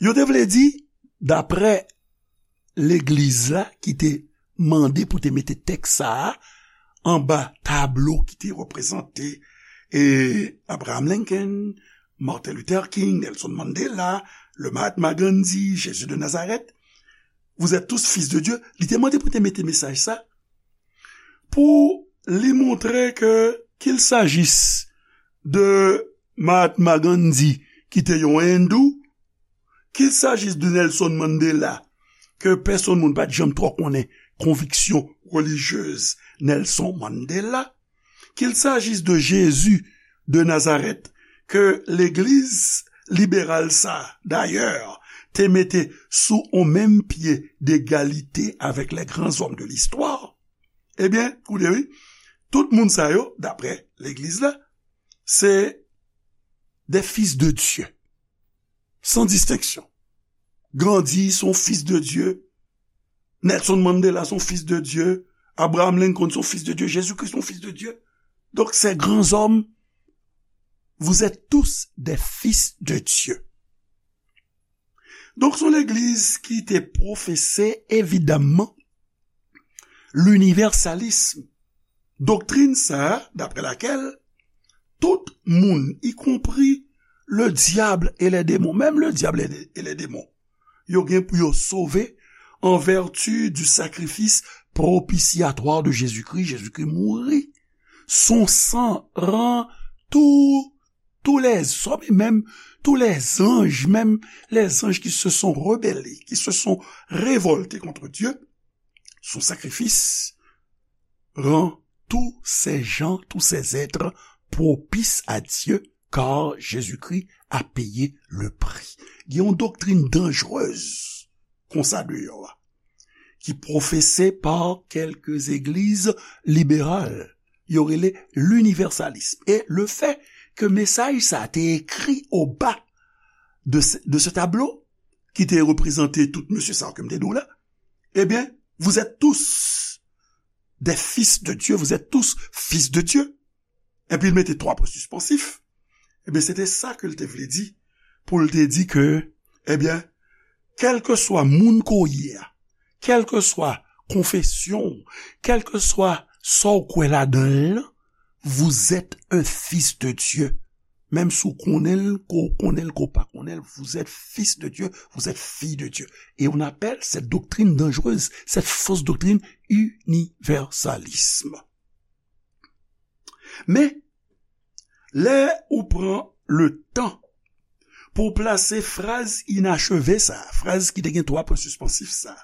Yo te vle di, daprè legliz la ki te mande pou te mete tèks sa a anba tablo ki te reprezante, e, Abraham Lincoln, Martin Luther King, Nelson Mandela, le Mahatma Gandhi, Jésus de Nazareth, vous êtes tous fils de Dieu, li te mande pou te mete mesaj sa, pou li montre ke, qu'il s'agisse de Mahatma Gandhi, ki te yon endou, qu'il s'agisse de Nelson Mandela, ke pèsonn moun pa t janm twò konnen konviksyon relijyez Nelson Mandela, qu'il s'agisse de Jésus de Nazareth, ke legliz liberal sa, dayè, te mete sou on menm pye degalite avèk les grands hommes de l'histoire, ebyen, koute wi, tout moun sa yo, daprè legliz la, se des fils de Dieu, sans distinction. Gandhi se yon fils de Dieu, Nelson Mandela se yon fils de Dieu, Abraham Lincoln se yon fils de Dieu, Jésus-Christ se yon fils de Dieu. Donc, ces grands hommes, vous êtes tous des fils de Dieu. Donk, se yon legliz ki te pwofese, evidamman, linivèsalism. Doktrin sa a, d'après laquelle tout moun, y compris le diable et les démons, menm le diable et les démons, yo gen pou yo sove en vertu du sacrifice propitiatoire de Jésus-Christ. Jezikri mouri. Son san ran tou tous les hommes, et même tous les anges, même les anges qui se sont rebellés, qui se sont révoltés contre Dieu, son sacrifice rend tous ces gens, tous ces êtres propices à Dieu, car Jésus-Christ a payé le prix. Gen yon doktrin danjrez konsa deyò a, ki pwofese pa kèlke legliz liberal, yo rele linivèsalism. E le fait que mesaj sa te ekri o ba de, de ce tableau, ki te reprezante tout mesye sa yo ke m te di w la, ebyen, vous êtes tous des fils de Dieu, vous êtes tous fils de Dieu. Epi l mete twa pwen sispansif. Ebyen, se te sa ke l te vle di, pou l te di ke, ebyen, kèlkeswa moun ke w ye a, kèlkeswa konfesyon w, kèlkeswa sa w kwè ladan l lan, vous êtes un fils de Dieu. Menm si w konnen l, ke w konnen l, ke w pa konnen l, vous êtes fils de Dieu, vous êtes fille de Dieu. Et on appelle cette doctrine dangereuse, cette fausse doctrine, universalisme. Men, lè ou pran le tan pou w plase fraz inacheve sa, fraz ki te gen twa pwen sispansif sa,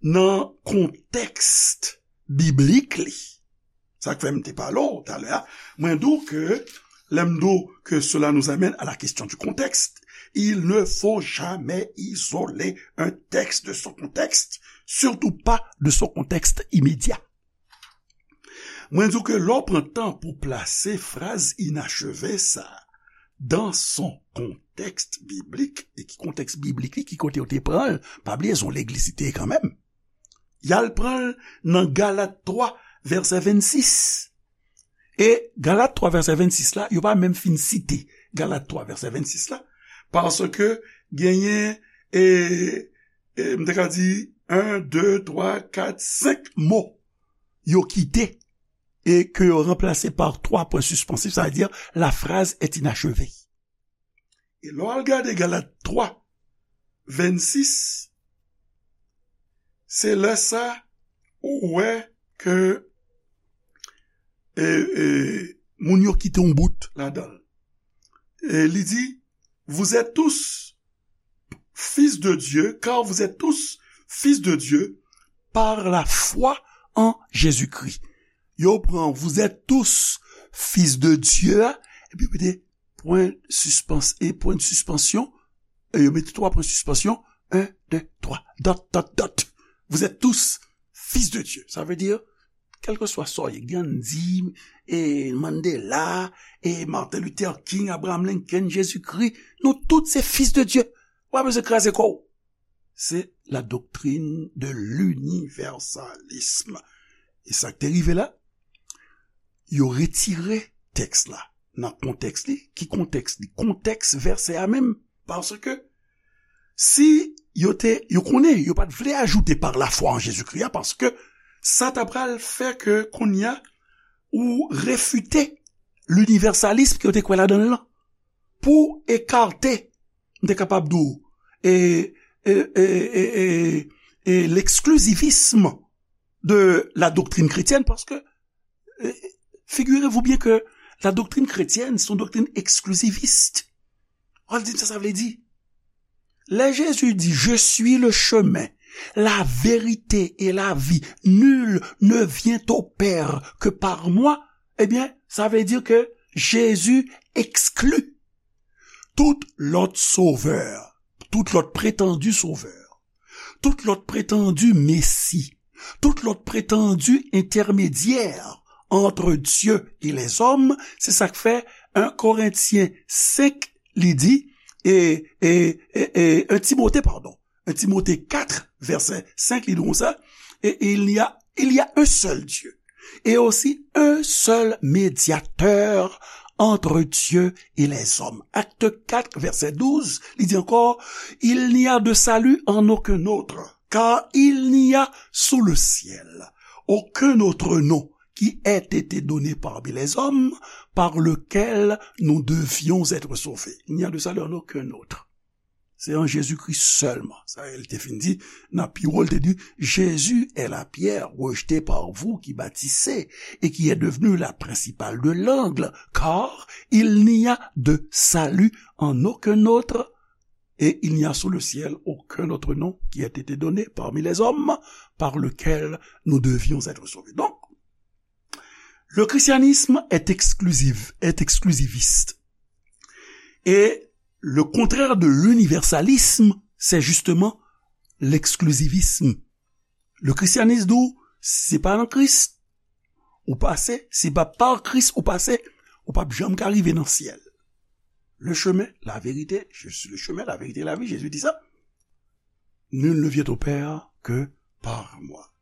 nan kontèks biblik li, sa k fè m te pale w talè a, mwen di w ke, lè m di w que cela nous amène à la question du contexte, il ne faut jamais isoler un texte de son contexte, surtout pas de son contexte immédiat. Mwen di w ke lè w pran tan pou plase fraz inacheve sa a dans son contexte biblique, e ki kontèks biblik li, ki kote yo te pran l, pa bliye se yon legliz li te ye kanmenm. Y al pran l nan Galat twa, vèsè vennsis. E Galat twa, vèsè vennsis la, yo pa menm fin site Galat twa, vèsè vennsis la, paske genyen, e, e, m te ka di, en, de, twa, kat, senk mo yo kite e ke yo ranplase pa twa pwen sispansif, sa vle di la phrase est inachevée. E lè w al gade Galat twa, vennsis, se lè sa ou wè ke, e, e, moun yo kite yon bout ladan l. E li di, vous êtes tous fils de Dieu, car vous êtes tous fils de Dieu par la foi en Jésus-Christ. Yo pran, vous êtes tous fils de Dieu a, epi yo mete pwen sispans-, e pwen de sispansyon, e yo mete twa pwen sispansyon, en, de, twa, dot, dot, dot. Vous êtes tous fils de Dieu. Sa vle di, kèlkeswa sa w ye, Gandhi, e Mandela, e Martin Luther King, Abraham Lincoln, Jezikri, nou tout se fils de Dieu. Ou pa bezwen kraze kò w. Se la doctrine de l'universalisme. E sa k te rive la, yo retire tèks la nan kontèks li. Ki kontèks li? Kontèks vèsè a menm. Paske si yo te, yo konnen, yo pa t vle ajoute par la foi en Jésus-Christ a, paske sa ta pral fè ke kounye a ou refite linivèsalism ke yo te kwè ladan l lan. Pou ekate m te kapab di w, e, e, e, e, e, e l'exclusivisme de la doctrine chrétienne, paske, e, figurez-vous bien que la doctrine chrétienne, c'est une doctrine exclusiviste. Ou al di m sa sa vle di. Lè Jezi di, "Je suis le chemin, la vérité et la vie, nul ne vient au Père que par moi", ebyen, sa vle di ke Jezi ekskli tout lòt sovè, tout lòt pretandi sovè, tout lòt pretandi mesi, tout lòt pretandi entèmedyè entre Dieu et les hommes, se sa k fè en Korentyen senk, li di, e, e, e, e, en Timote, padon, en Timote kat, vèsè senk, li di konsa, et il y a, il y a un seul Dieu, et aussi un seul médiateur entre Dieu et les hommes. Acte quatre, verset douze, li di ankò, il n'y a de salut en aucun autre, car il n'y a sous le ciel aucun autre nom qui ait été donné parmi les hommes par lequel nous devions être sauvés. Il n'y a de salut en aucun autre. Se an Jezikri sèlman. Sa e l te fin di, nan pi wo, l te di, Jésus est la pierre rejetée par vous qui bâtissez et qui est devenue la principale de l'angle, car il n'y a de salut en aucun autre, et il n'y a sous le ciel aucun autre nom qui ait été donné parmi les hommes par lequel nous devions être sauvés. Donc, le christianisme est exclusif, est exclusiviste. Et le contraire de l'universalisme, c'est justement l'exclusivisme. Le christianisme di w, si se pa nan Kris, ou pase, si pa pa Kris, ou pase, ou p ap janm ka rive nan syèl. Le chemin, la vérité, je suis le chemin, la vérité, la vie, Jésus dit ça. Nul ne vient au Père que par moi.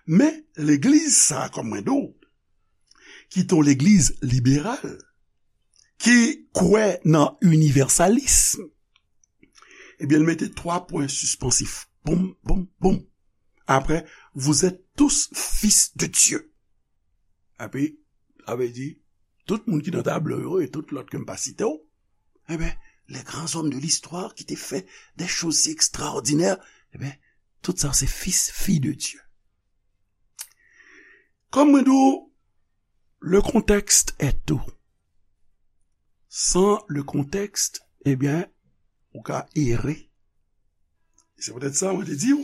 Men legliz sa, kòm mwen di w, ki t on legliz liberal, ki kwè nan inivèsalism, ebyen, l mete twa pwen sispansif. Boum, boum, boum. Apre, vous êtes tous fils de Dieu. Epi, sa vle di, tout moun ki nan tablo yo e tout lòt ke m pa site w, enben, les grands hommes de l'histoire qui te fait des choses si extraordinaires, enben, tout sa se fis, fi de Dieu. Kòm mwen di w, le contexte est tout. Sans le contexte, ebyen, ou ka ere. E se poutèt sa, mwen te di w,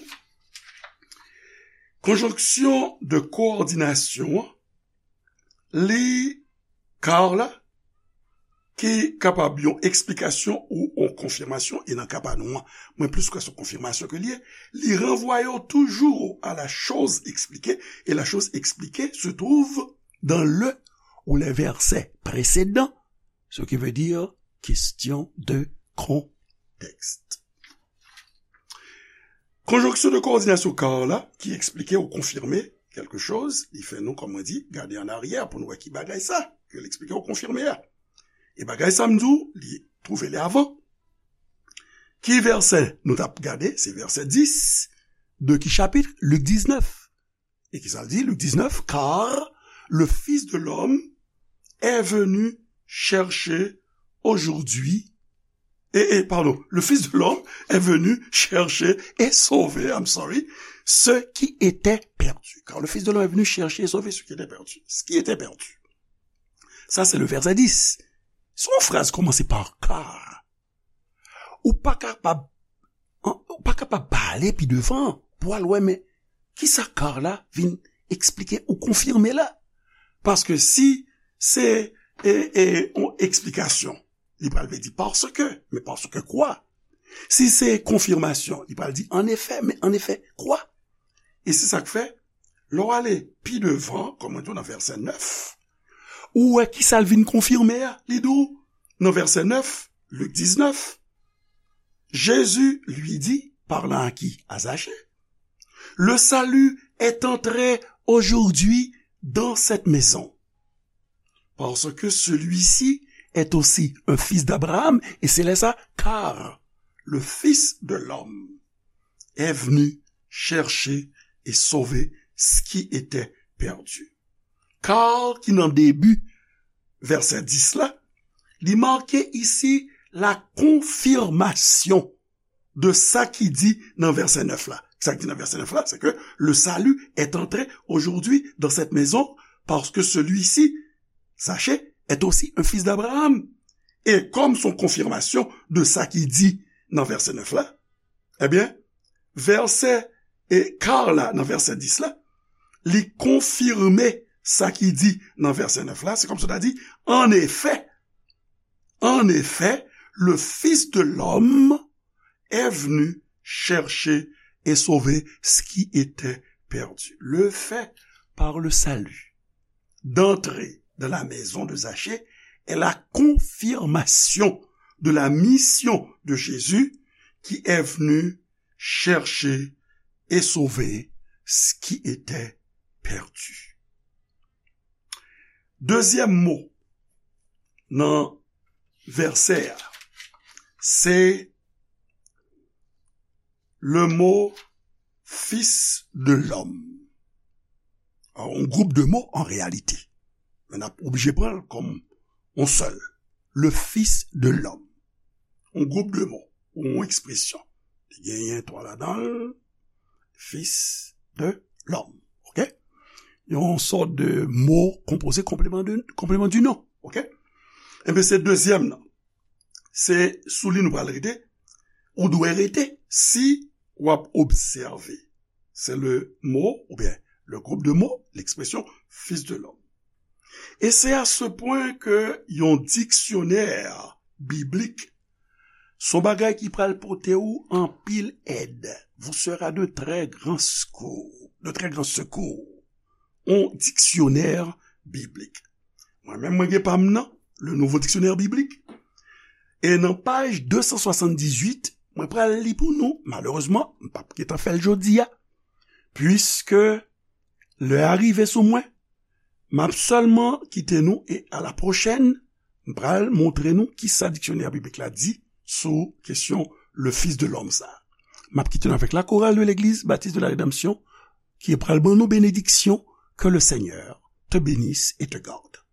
konjonksyon de kowòdinasyon an, li, car la, ki kapab yon eksplikasyon ou yon konfimasyon, e nan ka pa nou an, mwen plis kwè se yon konfimasyon ke l ye, li ranvwaye w toujou à la chose expliquée, et la chose expliquée se trouve dans le ou les versets précédents, ce qui veut dire question de contexte. Konjonksyon de kowòdinasyon car la, ki eksplike ou konfime kèlke choz, li fè nou, kòm mwen di, gade an aryè pou nou wè ki bagay sa, ke l eksplike ou konfime a. E bagay sa, m di w, li twouve li avan. Ki vèsè nou t ap gade? Se vèsè dis de ki chapit? Lik diznèf. E ki sa l di? Lik diznèf, car le Fils de l'homme est venu chercher aujourd'hui, et, et, pardon, le Fils de l'homme est venu chercher et sauver, I'm sorry, ce qui était perdu. Car le Fils de l'homme est venu chercher et sauver ce qui était perdu. Ce qui était perdu. Sa se le vèsè dis. Se yon fraz kòmanse pa car. Ou pa kapab, ou pa kapab pale pi devan pou al wè, men kisa car la vin eksplike ou konfime la? Paske si se, e, e, yon eksplikasyon, li pral vle di parce que, men parce que quoi? Si se konfimasyon, li pral di en effet, men en effet quoi? E se sa k fè, lè w ale pi devan, kòm mwen di w nan vèsè nèf, ou wè kisa l vin konfime a. Li di w nan vèsè nèf, Lik diznèf, Jésus lui dit, parlant à qui? À Zachée. Le salut est entré aujourd'hui dans cette maison, parce que celui-ci est aussi un fils d'Abraham, et c'est là ça, car le Fils de l'homme est venu chercher et sauver ce qui était perdu. Car ki nan debi vèsè dis la, li make isi la confirmation de sa ki di nan vèsè nèf la. Sa ki di nan vèsè nèf la, c'est que le salut est entré aujourd'hui dans cette maison parce que celui-ci, Zachée, est aussi un fils d'Abraham. E kòm se yon konfimasyon de sa ki di nan vèsè nèf la, ebyen, vèsè e kar la, nan vèsè dis la, li konfime sa ki di nan vèsè nèf la. Se kòmsi w ta di, en effet, en effet, le Fils de l'homme est venu chercher et sauver ce qui était perdu. Le fait par le salut d'entrer dans la maison de Zachée est la confirmation de la mission de Jésus qui est venu chercher et sauver ce qui était perdu. Dezyèm mo nan vèsè a, se le mo fils de l'homme. Yon gwoup de mo an reyalite. Men n ap oblije pran l kòm yon sèl. Le fils de l'homme. Yon gwoup de mo, ou yon ekspresyon. Li genyen twa ladan l, fils de l'homme. Oke? Yon sòt de mo konpoze konpleman de, konpleman di non. Oke? Enben, se dezyèm nan. Se sou li nou pral rete. Ou dwe rete si w ap obsève. Se le mo, oubyen le gwoup de mo, l'expression fils de l'homme. E se a se pwen ke yon diksyonè biblik se yon bagay ki pral pote ou anpil èd. Vous sera de très grands secours, de très grands secours. Yon diksyonè biblik. Mwen menm, mwen gen pa m nan, le Nouveau Dictionnaire Biblique. E nan paj de san swasanndizuit, mwen pral li pou nou. Malerezman, m p ap gentan fè l jodi a, puiske lè a rive sou mwen. M ap sèlman kite nou e a la pwochèn, m pral montre nou kisa diksyonè biblik la di sou kesyon le Fils de l'homme sa. M ap kite nou avèk la chorale de l'église baptiste de la rédemption ki pral ban nou benediksyon. Que le Seigneur te bénisse et te garde.